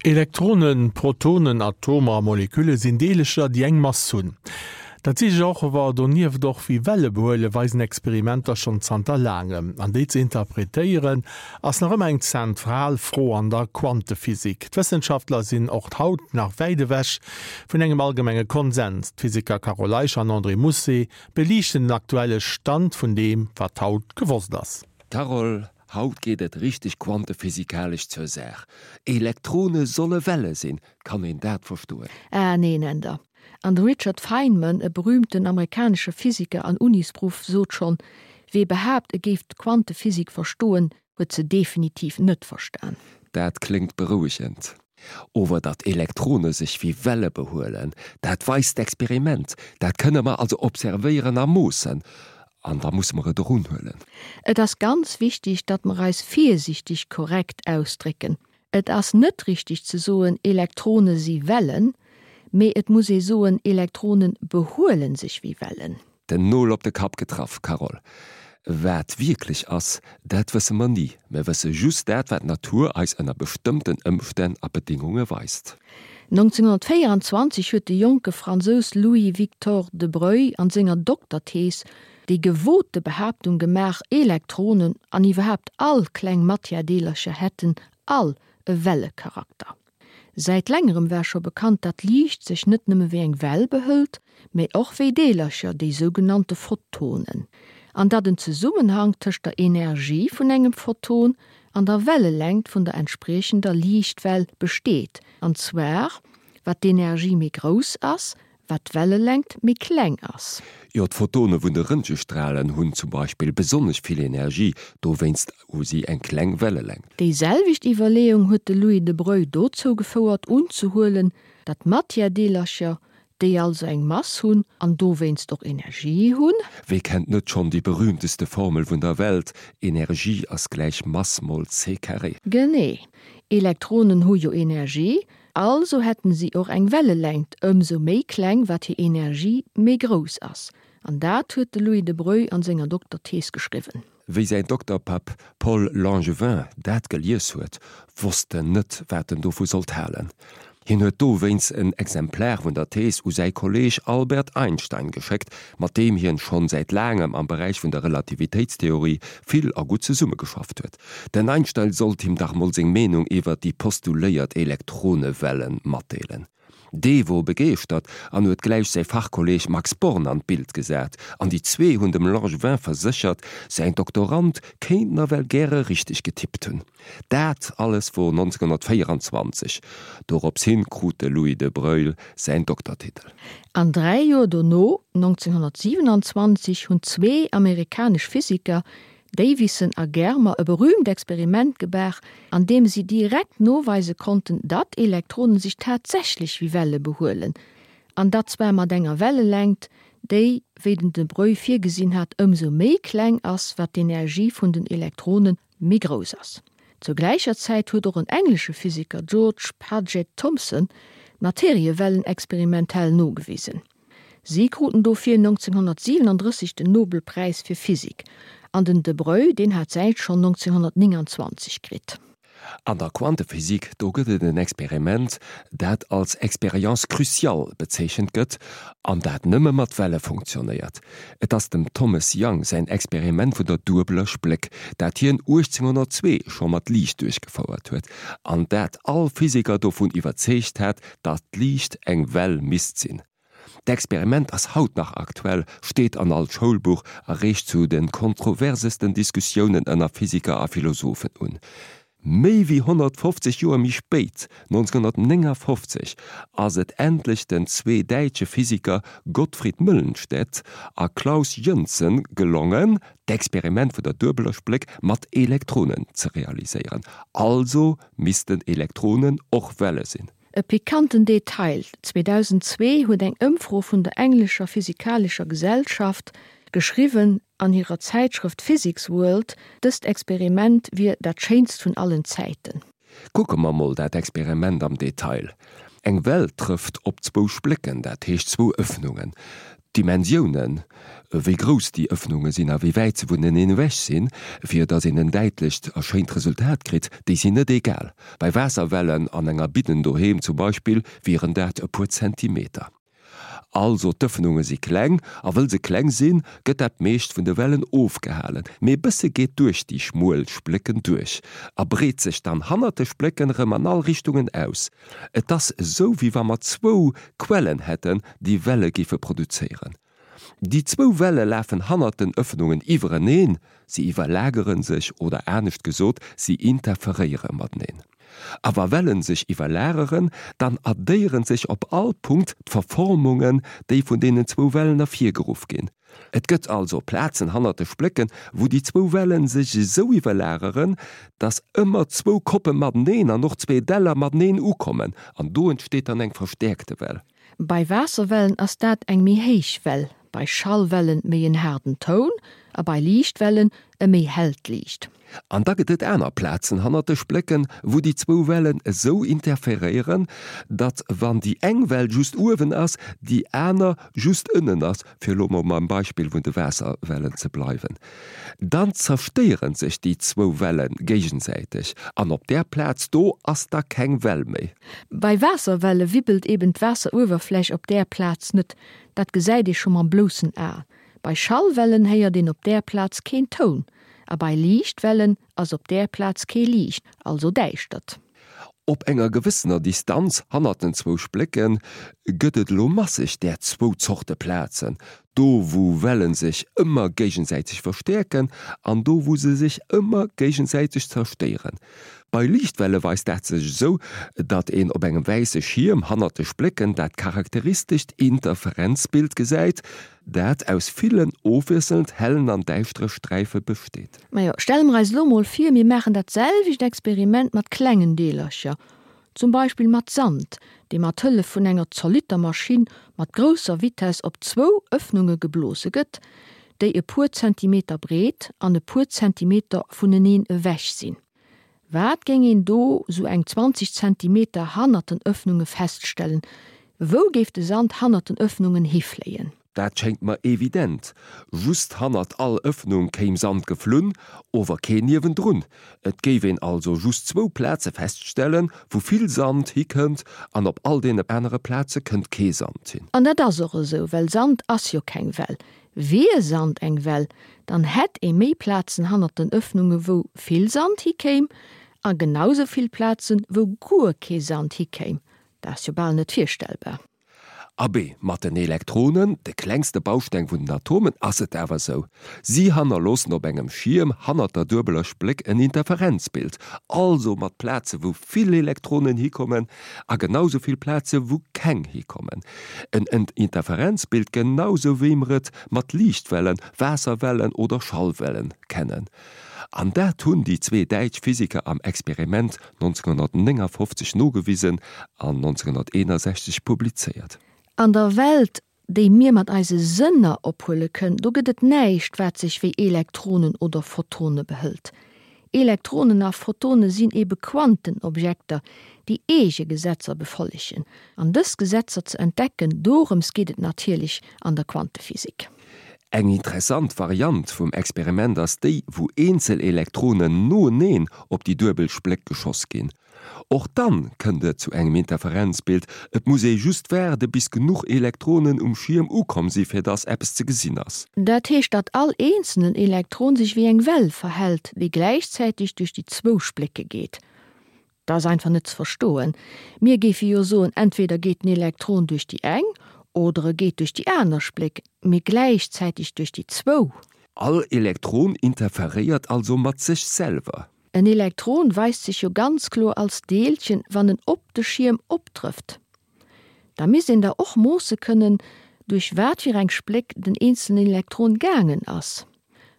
Elektronen, Protonen, Atomer a Molekülle sinn Deelecher, déi eng Mass hunn. Dat si sech och awer donieft och wéi Welle behuelen, weisen Experimenter schonn zanter laangem. An déi ze interpretéieren, ass nach ëmmer eng zentral Fro an der Quantephysik. D'Wëssenschaftler sinn och haut nach wäit ewech vun engem allgemenge Konsens. D'Physiker Carole Eicher an André Mousset beliichten den aktuelle Stand vun deem, wat haut gewosst ass. Carole, Haut geet et richteg quantephysikalesch zur Saach. Elektrone solle Welle sinn, kann een dat verstoen? Ah neen, Änder. An de Richard Feynman, e berühmten amerikanesche Physiker an Unisproff, sot schonn, Wee behaapt, e géif d'Quantephysik verstoen, huet se definitiv net verstan. Dat kléngt berouegend. Ower datt Elektrone sech wéi Welle behuelen, dat weist d'Experiment. Dat kënne mer also observéieren a moossen. An da musse mer et och unhuelen. Et ass ganz wichtig, datt mer eis virsichtig korrekt ausdrécken. Et ass net richtig ze soen, Elektrone si Wellen, mee et muss ee soen, Elektrone behuele sech wéi Wellen. Den Nol op de Kapp getraff, Carole. Wat wierklech ass, dat wësse mer ni. Mer wësse just dat, wat d'Natur eis ënner bestëmmten Ëmstänn a Bedéngunge weist. 1924 huet de jonke Fransous Louis-Victor de Broglie an senger Dokterthees déi gewote Behaaptung gemaach, Elektronen an iwwerhaapt all kleng Matièredeelercher hätten all e Wellecharakter. Säit längerem war scho bekannt, datt Liicht sech net nëmme wéi eng Well behëlt, mee och wéi Deelercher, déi sougenannte Photonen, an datt en Zesummenhank tëscht der Energie vun engem Photon an der Wellelängt vun der entspriechender Liichtwell besteet, an zwar wat d'Energie méi grouss ass, wat d'Wellelängt méi kleng ass. Jo, d'Photone vun de Röntgestralen hunn zum Beispill besonnesch vill Energie, dowéinst hu si eng kleng Wellelängt. Déi selwecht Iwwerleeung huet de Louis de Broglie dozou gefouert unzehuelen, datt Matièredeelercher, déi also eng Mass hunn an dowéinst och Energie hunn, Wee kennt net schonn déi berühmteste Formel vun der Welt, Energie ass gläich Mass mol c carré. Genee, Elektronen hu jo Energie, Also hätten si och eng Wellelängt ëmsou méi kleng wat hir Energie méi grouss ass. An dat huet de Louis de Broglie an senger Dokterthees geschriwwen. Wéi säin Dokterpapp Paul Langevin dat gelies huet, wosst en net wat en dovu sollt halen. Hien huet dowéinst en Exemplar vun der Thees u säi Kolleeg Albert Einstein geschéckt, mat deem hien schonn säit laangem am Beräich vun der Relativitéitstheorie vill a gutt zesummegeschafft huet. Den Einstein sollt him dach mol seng Meenung iwwert déi postuléiert Elektronewellen matdeelen. Dee wor begeeschtert an huet gläich säi Fachkolleeg Max Born an d'Bild gesat, an déi zwee hunn dem Langevin verséchert, säin Doktorand kéint nawell gäre richteg getippt hunn. Dat alles wor 1924. Dorops hin krut de Louis de Broglie säin Doktertitel. An 3 Joer dono, 1927, hunn zwee amerikanesch Physiker, Davisson a Germer, e berühmt Experiment gebaach, an deem si direkt noweise konnten, datt Elektronen sech tatsächlech wéi Welle behuelen, an dat zwar mat enger Wellelängt, déi, wéi den de Broglie virgesinn hat, ëmsou méi kleng ass, wat d'Energie vun den Elektrone méi grouss ass. Zur gläicher Zäit huet och en englesche Physiker, George Paget Thomson, d'Materiewellen experimentell nogewisen. Si kruten dofir 1937 den Nobelpräis fir Physik, an den de Broglie, deen hat säin schonn 1929 kritt. An der Quantephysik, do gëtt et en Experiment, dat als Expérience cruciale bezeechent gëtt, an dat nëmme mat Welle funktionéiert. Et ass dem Thomas Young säin Experiment vun der duebeler Spléck, dat hien 1802 scho mat Liicht duerchgefouert huet, an dat all Physiker dovun iwwerzeegt hat, datt d'Liicht eng Well misst sinn. D'Experiment ass haut nach aktuell, steet an all Schoulbuch a reegt zu de kontroversesten Diskussiounen ënner Physiker a Philosophen un. Méi wéi 150 Joer méi spéit, 1959, ass et endlech den zwee däitsche Physiker Gottfried Möllenstedt a Klaus Jönsson gelongen, d'Experiment vun der duebeler Spléck mat Elektronen ze realiséieren. Also missten Elektronen och Welle sinn. E pikanten Detail, 2002 huet eng Ëmfro vun der englescher physikalescher Gesellschaft geschriwwen an hirer Zäitschrëft Physics World, dëst Experiment wier dat schéinst vun allen Zäiten. Kucke mer mol dat Experiment am Detail. Eng Well trëfft op zwou Splécken, dat heescht zwou Ëffnungen. D'Dimensioune. wéi grouss déi Ëffnunge sinn a wéi wäit se vuneneen ewech sinn, fir datt een en däitlecht a schéint Resultat kritt, déi sinn net egal. Bei Waasserwellen an enger Bidden doheem zum Beispill wieren dat e puer Zentimeter. Also d'Ëffnunge si kleng, a wëll se kleng sinn, gëtt dat meescht vun de Wellen ofgehalen, mee e bësse geet duerch déi schmuel Splécken duerch a breet sech dann hannert de Splécken erëm an all Richtungen aus. Et ass esou wéi wa mer zwou Quellen hätten, déi Welle géife produzéieren. Déi zwou Welle lafen hannert den Ëffnungen iwwereneen, se iwwerlagere sech oder anescht gesot, si interferéiere mateneen. A wa Wellen sech iwwerlageren, dann addéieren sech op all Punkt d'Verformungen, déi vun deenen zwou Wellen ervirgeruff ginn. Et gëtt also Plazen hannert de Splécken, wou déi zwou Wellen sech esou iwwerlageren, dass ëmmer zwou Koppe mateneen an och zwee Däller mateneen ukommen, an do entsteet dann eng verstäerkte Well. Bei Waasserwellen ass dat eng méi héich Well, bei Schallwellen méi en haarden Toun a bei Liichtwellen e méi hellt Liicht. An da gëtt et aner Plazen hannert de Splécken, wou déi zwou Wellen esou interferéieren, datt wann déi eng Well just uewen ass, déi aner just ënnen ass, fir elo mol beim Beispill vun de Waasserwellen ze bleiwen. Dann zerstéiere sech déi zwou Welle géigesäiteg an op där Plaz do ass da keng Well méi. Bei Waasserwelle wibbelt eben d'Waasseruewerfläch op där Plaz net, dat gesäit ee scho mam bloussen A. Bei Schallwellen héiert een op där Plaz keen Toun a bei Liichtwellen ass op där Plaz kee Liicht, also Däischtert. Op enger gewëssener Distanz hannert den zwou Splécke gëtt et elo masseg där zwou Zorte Plazen, do wou Welle sech ëmmer géigesäiteg verstäerken an do wou se sech ëmmer géigesäiteg zerstéieren. Bei Liichtwelle weist dat sech esou, datt een op engem wäisse Schierm hannert de Splécken dat charakteristescht Interferenzbild gesäit, dat aus villen ofwiesselnd hellen an däischtere Sträife besteet. Majo, stelle mer eis elo mol vir, mir maachen dat selwecht Experiment mat klengen Deelercher, zum Beispill mat Sand, dee mat Hëllef vun enger Zollitermaschinn mat grousser Vitess op zwou Ëffnunge geblose gëtt, déi e puer Zentimeter breet an e puer Zentimeter vuneneen ewech sinn. Wat géing een do sou eng 20 Zentimeter hannert den Ëffnunge feststellen? Wou géif de Sand hannert den Ëffnungen hifléien? Dat schéngt mer evident, just hannert all Ëffnung kéim Sand geflunn, ower keen niewendrun. Et géif een also just zwou Plaze feststellen, wou vill Sand hikënnt, an op all deene anere Plaze kënnt kee Sand hin. An dat ass och esou, well Sand ass jo keng Well. Wier Sand eng Well, dann hätt ee méi Plazen hannert den Ëffnunge wou vill Sand hikéim, a genau sou vill Plazen, wou guer kee Sand hikéim. Dat ass jo bal net virstellbar. Abee, mat den Elektronen, de klengste Bausteng vun den Atomen, ass et awer sou. Si hannerloossen op engem Schierm hannert der duebeler Spléck en Interferenzbild, also mat Plaze wou vill Elektronen hikommen a genau sou vill Plaze wou keng hikommen. En Interferenzbild genau sou wéi mer et mat Liichtwellen, Waasserwellen oder Schallwellen kennen. An dat hunn déi zwee däitsch Physiker am Experiment 1959 nogewisen an 1961 publizéiert. An der Welt, déi mir mat eise Sënner ophuele kënnen, do gëtt et näischt, wat sech wéi Elektronen oder Photone behëlt. Elektronen a Photone sinn ebe Quantenobjekter, déi eege Gesetzer befollegen. An dës Gesetzer ze entdecken, dorëms geet et natierlech an der Quantephysik. Eng interessant Variant vum Experiment ass déi, wou eenzel Elektronen noeneen op déi duebel Spléck geschoss ginn. Och dann kënnt et zu engem Interferenzbild, et muss ee just waarde bis genuch Elektronen um Schierm ukomm si fir dass eppes ze gesinn ass. Dat heescht datt all eenzelen Elektron sech wéi eng Well verhält, déi gläichzäiteg duerch déi zwou Splécke geet. Dat ass einfach net ze verstoen. Mir géife jo soen, entweder geet den Elektron duerch déi eng oder e geet duerch déi aner Spléck, mee gläichzäiteg duerch déi zwou. All Elektron interferéiert also mat sech selwer. En Elektron weist sech jo ganz kloer als Deelchen, wann en op de Schierm optrëfft. Da misst een da och moosse kënnen, duerch wat fir eng Spléck den eenzelen Elektron gaangen ass.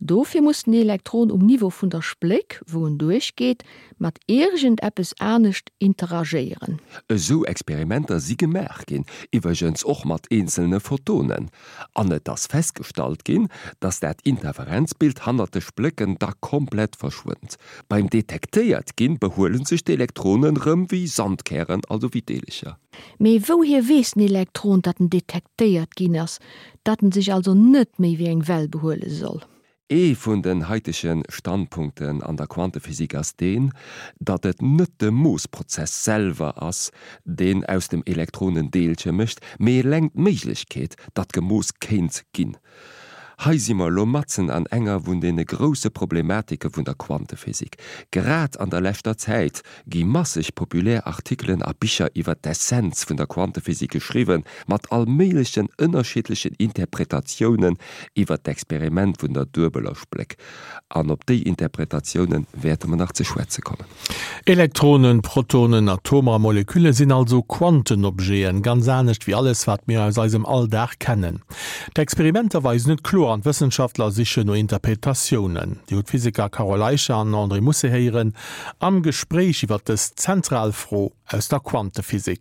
Dofir muss den Elektron um Niveau vun der Spléck, wou en duerchgeet, mat iergend eppes anescht interagéieren. Esou Experimenter si gemaach ginn, iwwergens och mat eenzelne Photonen, an et ass festgestallt ginn, datt dat Interferenzbild hannert de Splécken da komplett verschwënnt. Beim detektéiert ginn behuele sech d'Elektronen rëm wéi Sandkären, also wéi Deelecher. Mee wouhier weess den Elektron, datt en detektéiert ginn ass, datt en sech also net méi wéi eng Well behuele soll? Ee vun den haitege Standpunkten an der Quantephysik ass deen, datt et net de Moossprozess selwer ass, deen aus dem Elektron en Deelche mécht, mee eleng d'Méiglechkeet, datt gemooss kéint ginn. Hei si mer elo matzen an enger vun deene grousse Problematike vun der Quantephysik. Grad an der leschter Zäit gi masseg populär Artikelen a Bicher iwwer d'Essenz vun der Quantephysik geschriwwen, mat all méiglechen ënnerschiddlechen Interpretatiounen iwwer d'Experiment vun der duebeler Spléck. An op déi Interpretatioune wäerte mer nach ze schwätze kommen. Elektronen, Protonen, Atomer a Molekülle sinn also Quantenobjeten, ganz anescht wéi alles, wat mir aus eisem Alldag kennen. D'Experimenter weisen et kloer an d'Wëssenschaftler sichen no Interpretatiounen. Dir hutt d'Physiker Carole Eicher an André Musse héieren am Gespréich iwwer dës zentral Fro aus der Quantephysik.